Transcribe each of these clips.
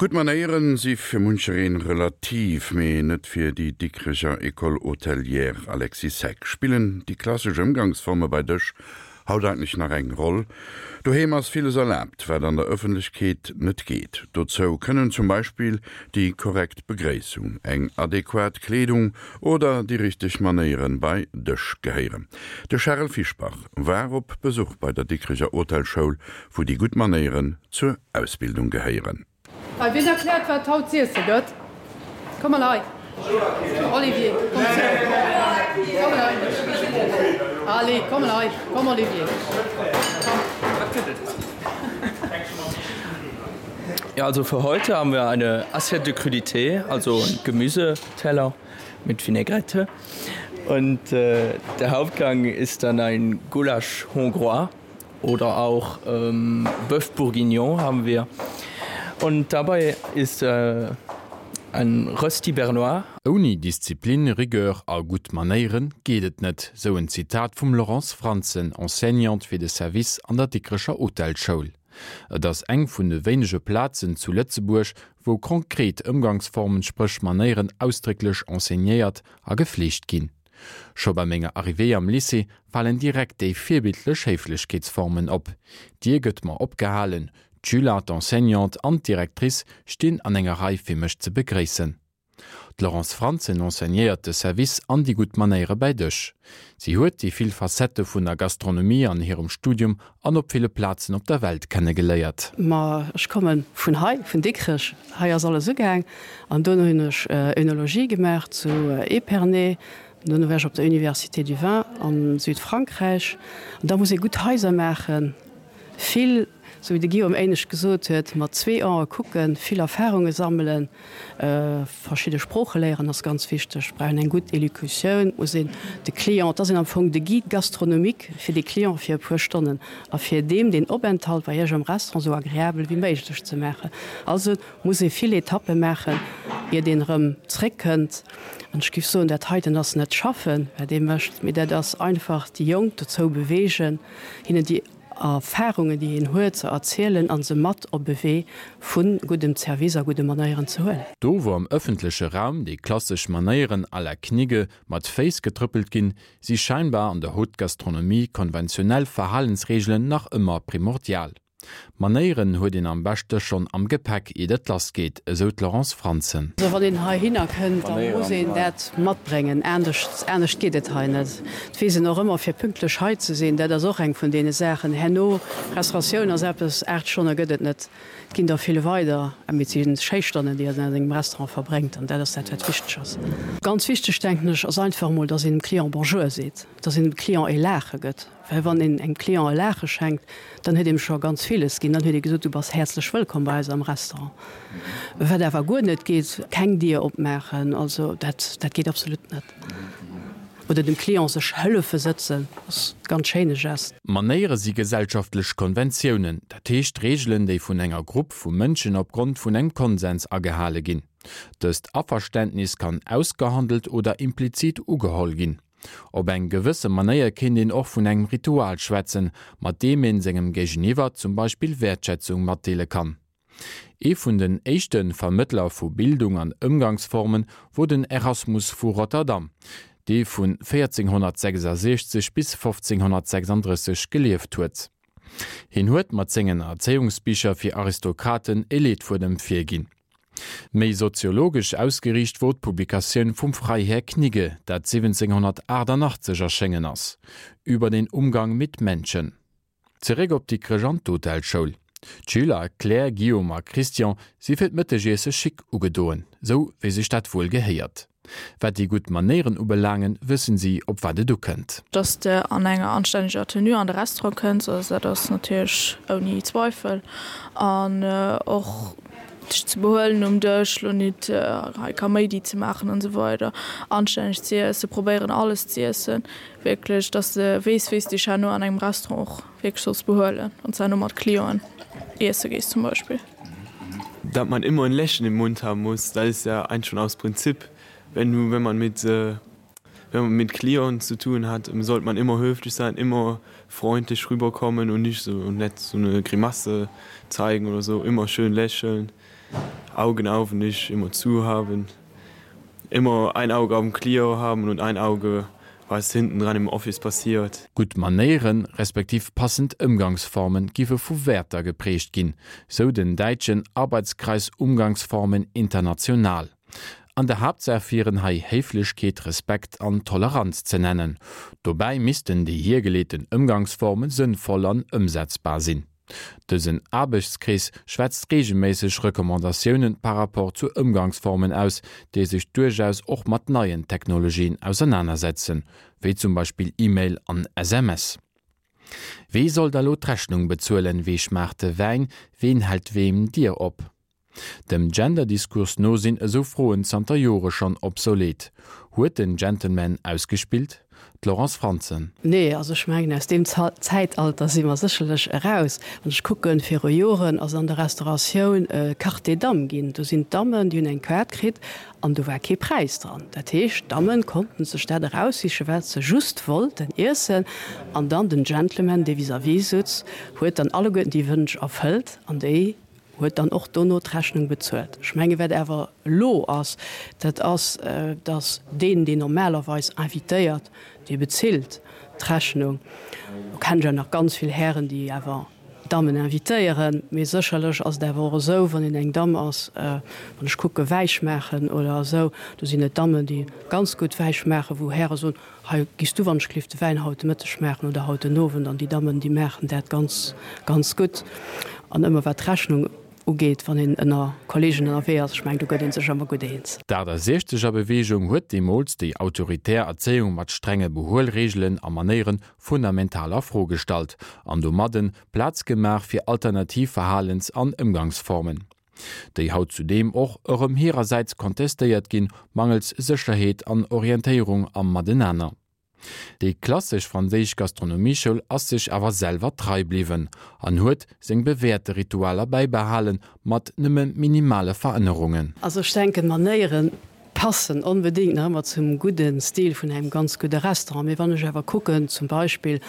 Gutt Manéieren si fir munchereen relativ, mee net fir déi Dikrecher École Hôtelière Alexis Heck. Spillen déi klassesch Ëmgangsforme bei Dësch haut eigentlech nach eng Roll? Doheem ass villes erlaabt, wat an der Ëffentlechkeet net geet. Dozou kënnen zum Beispill déi korrekt Begréissung, eng adequat Kleedung oder déi richteg Manéieren bei Dësch gehéieren. De Charel Fischbach war op Besuch bei der Dikrecher Hotelschoul, wou déi gutt Manéieren zur Ausbildung gehéieren. Hei, wien erkläert wat haut z'iesse gëtt? Komm mol hei, Olivier, komm zu Komm mol hei, Allez, komm mol hei, komm Olivier, komm. Wat gëtt et? Ja, also für heute haben wir eine Assiette de Crudités, also ein Gemüseteller mit Vinaigrette. Und äh, der Hauptgang ist dann ein Gulasch hongrois oder auch ähm, Bœuf bourguignon haben wir. Und dabei ist äh, ein Rösti Bernois. Ouni Disziplin, Rigueur a gutt Manéiere geet et net, sou en Zitat vum Laurence Frantzen, Enseignante fir de Service an der Dikrecher Hotelschoul. Et ass eng vun de wéinege Plazen zu Lëtzebuerg, wou konkret Ëmgangsformen, spréch Manéieren, ausdrécklech enseignéiert a gefleegt ginn. Scho bei menger Arrivée am Lycée falen direkt déi virbildlech Héiflechkeetsformen op. D'Dier gëtt mer opgehalen, d'Schüler, d'Enseignante an d'Directrice stinn an enger Rei fir mech ze begréissen. D'Laurence Frantzen enseignéiert de Service an déi gutt Manéiere bäi Dësch. Si huet déi vill Facettë vun der Gastronomie an hirem Studium an op ville Plazen op der Welt kennegeléiert. Ma ech komme vun hei, vun Dikrech. Hei ass alles ugaang. An dono hunn ech Oenologie gemaach zu Épernay. Dono war ech op der Université du Vin a Südfrankräich. An da muss ee gutt Haiser maachen, vill. Sou wéi de Guillaume éinescht gesot huet, mat zwee Ae kucken, vill Erfarunge sammelen, verschidde Sprooche léieren ass ganz wichteg. Et brauch een eng gutt Elocutioun, et muss een de Client, et ass een am Fong de Guide gastronomique fir de Client fir e puer Stonnen a fir deem deen Openthalt bei Iech am Restaurant esou agreabel wéi méiglech ze maachen. Also muss ee vill Etappe maachen, iert een erëm zréckkënnt. An ech géif soen, dat heiten ass net schaffen, wat ee mécht, mee dat ass einfach déi Jonk dozou beweegen, hinnen déi. Erfarungen, déi een huet, ze erzielen a se mat op e Wee vu guddem Zervice a gudde Manéieren ze huelen. Do wou am ëffentleche Raum déi klassesch Manéieren à la Knigge mat Féiss getrëppelt ginn, si scheinbar an der Haute Gastronomie konventionell Verhalensreegelen nach ëmmer primordial. Manéieren huet een am beschte schonn am Gepäck iert et lass geet, esou d'Laurence Frantzen. Also wann een heihinner kënnt, da muss een dat matbréngen, anescht, anescht geet et hei net. Et weess een och ëmmer fir pünktlech hei ze sinn, dat ass och eng vun deene Saachen. Herno, Restauratioun ass eppes, 8 Stonne gëtt et net, et ginn der vill weider, mee et si schéi Stonnen, déi een an engem Restaurant verbréngt an dat ass dat wat wichteg ass. Ganz wichteg, denken ech, ass einfach emol, dass een dem Client Bonjour seet, dass een dem Client e Laache gëtt. Well wann een engem Client e Laache schenkt, dann huet een em scho ganz villes ginn. Dann huet ee gesot, du bass häerzlech wëllkomm bei eis am Restaurant. Wat awer guer net geet, keng Dier opmaachen, also dat, dat geet absolut net. Oder dem Client sech hëllefe sëtzen, ass e ganz schéine Gest. Manéiere si gesellschaftlech Konventiounen, dat heescht Reegelen, déi vun enger Grupp vu Mënschen opgrond vun engem Konsens agehale ginn. Dëst Averständnis kann ausgehandelt oder implizit ugeholl ginn. Op eng gewësse Manéier kéint een och vun engem Ritual schwätzen, mat deem een sengem Géigeniwwer zum Beispill Wäertschätzung matdeele kann. Ee vun den éischte Vermëttler vu Bildung an Ëmgangsformen wor den Erasmus vu Rotterdam, dee vun 1466 bis 1536 gelieft huet. Hien huet mat sengen Erzéiungsbicher fir Aristokraten e Leetfuedem virginn. Méi soziologesch ausgeriicht wor d'Publikatioun vum Freiherr Knigge, dat 1788 erschéngen ass, Über den Umgang mit Menschen. Zeréck op Dikrech an d'Hotelschoul. D'Schüler Claire, Guillaume a Christian si fir d'Mëttegiesse chic ugedoen, sou wéi sech dat wuel gehéiert. Wat déi gutt Manéieren ubelaangen, wëssen si, op wat et ukënnt. Dass de an enger anstänneger Tenue an de Restaurant kënns, also dat ass natierlech ouni Zweifel. An och dech ze behuelen um Dësch, lo nit hei Kaméidi ze maachen an esou weider. Anstänneg ze iessen, probéieren alles ze iessen, wierklech, dass de weess, wéi s de dech herno an engem Restaurant och wierklech solls behuelen, wann s de herno mat Clienten iesse gees zum Beispill. Dat man immer ein Lächeln im Mund haben muss, dat ist ja eigentlich schon aus Prinzip. Wenn du, wenn man mit, wenn man mit Clienten zu tun hat, sollte man immer höflich sein, immer freundlich rüberkommen und nicht so nett so eine Grimasse zeigen oder so, immer schön lächeln. Augen auf und nicht immer zu haben. Immer ein Auge auf dem Client haben und ein Auge was hinten dran im Office passiert. Gutt Manéieren, respektiv passend Ëmgangsformen giffe vu Wäerter geprägt ginn, sou den däitschen Arbeitskreis Umgangsformen International. An der Haaptsaach wieren hei Héiflechkeet, Respekt an Toleranz ze nennen. Dobäi missten déi hiergeleeten Ëmgangsforme sënnvoll an ëmsetzbar sinn. Dësen Aarbechtskrees schwätzt reegelméisseg Recommandatiounen par rapport zu Ëmgangsformen aus, déi sech duerchaus och mat neien Technologien ausernanersetzen, wéi zum Beispill E-Mail an SMS. Wee soll da lo d'Rechnung bezuelen, wee schmaacht de Wäin, ween hält weem d'Dier op? Dem Gender-Diskurs no sinn esou Froen zanter Jore schonn obsolet. Huet den Gentleman ausgespillt? D'Laurence Frantzen. Nee, also ech mengen, aus deem Zäitalter si mer sécherlech eraus. Wann ech kucken, viru Joren ass an der Restauratioun Carte des Dames ginn. Do sinn d'Dammen, déi hunn eng Kaart kritt an do war kee Präis dran. Dat heescht, d'Damme konnten sech dat eraussichen, wat se just wollten iessen. An dann den Gentleman, dee vis-à-vis sutz, huet dann alleguerten déi Wënsch erfëllt an déi huet dann och dono d'Rechnung bezuelt. Ech menge wat awer elo ass, dat ass, datt deen, deen normalerweis invitéiert, dee bezilt d'Rechnung. Lo kennen ech awer nach ganz vill Hären, déi awer Dammen invitéieren, mee sécherlech ass et awer och esou, wann een eng Damm ass, wann ech kucke Wäisch maachen oder esou, do sinn et Dammen, déi ganz gutt Wäisch maachen, wou Häre soen, Hei giss du wann-ech-gelift de Wäin haut de Mëtteg maachen oder haut den Owend. An déi Dammen, déi maachen dat ganz, ganz gutt. An ëmmer wat d'Rechnung ugeet, wann een ënner Kollegen ënnerwee ass, ech mengen, do gëtt ee sech ëmmer gutt eens. D'Aachtasechzeger Beweegung huet deemools déi autoritär Erzéiung mat strenge Behuelreegelen a Manéiere fundamental a Fro gestallt an domadden Plaz gemaach fir alternativ Verhalens an Ëmgangsformen. Déi haut zudeem och erëm hirersäits kontestéiert ginn, mangels Sécherheet an Orientéierung am Matenaner. Déi klassesch franséisch Gastronomieschoul ass sech awer selwer trei bliwwen an huet seng bewäerte Ritualer bäibehalen, mat nëmme minimale Verännerungen. Also ech denken, Manéieren passen onbedéngt nach ëmmer zum gudde Stil vun engem ganz gudde Restaurant. Mee wann ech awer kucken, zum Beispill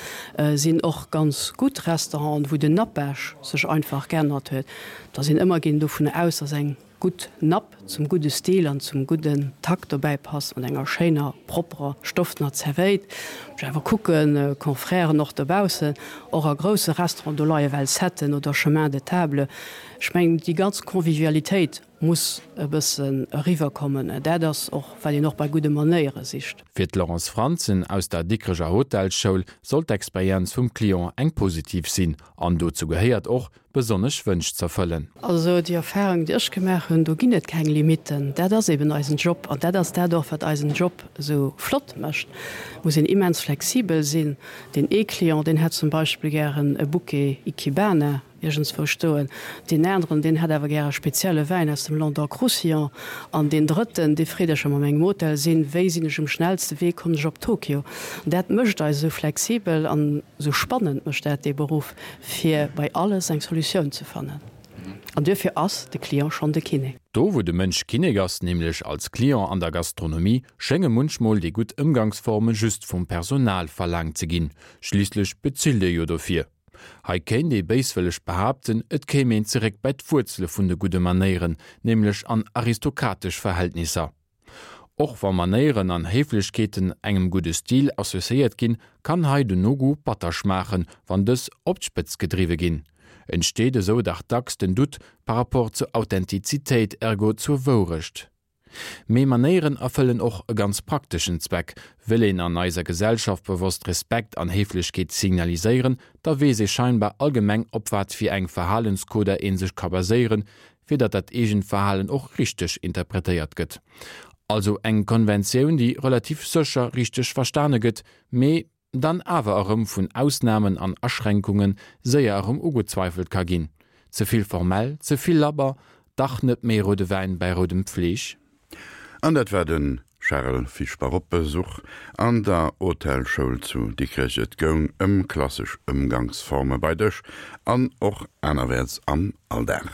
sinn och ganz gutt Restauranten, wou den Nappage sech einfach geännert huet, da sinn ëmmer ginn dovun aus, dass eng gutt Napp zum gudde Stil an zum gudden Takt dobäi passt, mat enger schéiner, propperer, stoffener Zerwéit. Wann ech awer kucken, Confrèren och dobaussen, och a grousse Restauranten, do leie well Setten oder Chemin de table. Ech mengen, déi ganz Convivialitéit muss e bëssen eriwwer kommen. Dat ass och, wat een och bei gudde Manéiere sicht. Fir d'Laurence Frantzen aus der Dikreger Hotelsschoul soll d'Experienz vum Client eng positiv sinn an dozou gehéiert och, besonnesch Wënsch z'erfëllen. Also déi Erfahrung, déi ech gemaach hunn, do ginn et keng Limitten. Dat ass eben eisen Job an dat ass dat och, wat eisen Job esou flott mécht. Et muss een immens flexibel sinn. Deen ee Client, deen hätt zum Beispill gären e Bouquet Ikebana. Iergendswou stoen. Deen aneren, deen hätt awer gär e spezielle Wäin aus dem Languedoc-Roussillon. An deen drëtten, dee freet ech, wa mer an engem Hotel sinn, wéi sinn ech um schnellste Wee, kommen ech op Tokio? An dat mécht eis esou flexibel an esou spannend mécht dat dee Beruff, fir bei alles eng Solutioun ze fannen. An duerfir ass de Client schonn de Kinnek. Do wou de Mënsch Kinnek ass, nämlech als Client an der Gastronomie, schénge munchmol déi gutt Ëmgangsforme just vum Personal verlaangt ze ginn. Schliisslech bezilt ee jo dofir. Hei kéint ee béiswëlleg behaapten, et kéim een zeréck bei d'Wuerzele vun de gudde Manéieren, nämlech an aristokratesch Verhältnisser. Och wa Manéieren an Héiflechkeeten engem gudde Stil associéiert ginn, kann hei den No-Goût batter schmaachen, wann dës op d'Spëtz gedriwwe ginn. Entsteet esou dach dacks den Doute par rapport zur Authentizitéit, ergo zur Wourecht. Mee Manéieren erfëllen och e ganz prakteschen Zweck, Wëll een an eiser Gesellschaft bewosst Respekt an Héiflechkeet signaliséieren, da weess ee scheinbar allgemeng op wat fir eng Verhalenskoder ee sech ka baséieren, fir datt dat eegent Verhalen och richteg interpretéiert gëtt. Also eng Konventioun, déi relativ sécher richteg verstane gëtt, mee dann awer erëm vun Ausnamen an Aschränkunge séier erëm ugezweifelt ka ginn. Ze vill formell, ze vill labber, dach net méi roude Wäin bäi roudem Fleesch? An dat war de Charel Fischbach op Besuch an der Hotelschoul zu Dikrech. Et goung ëm klassesch Ëmgangsforme bei Dësch an och anerwäerts am Alldag.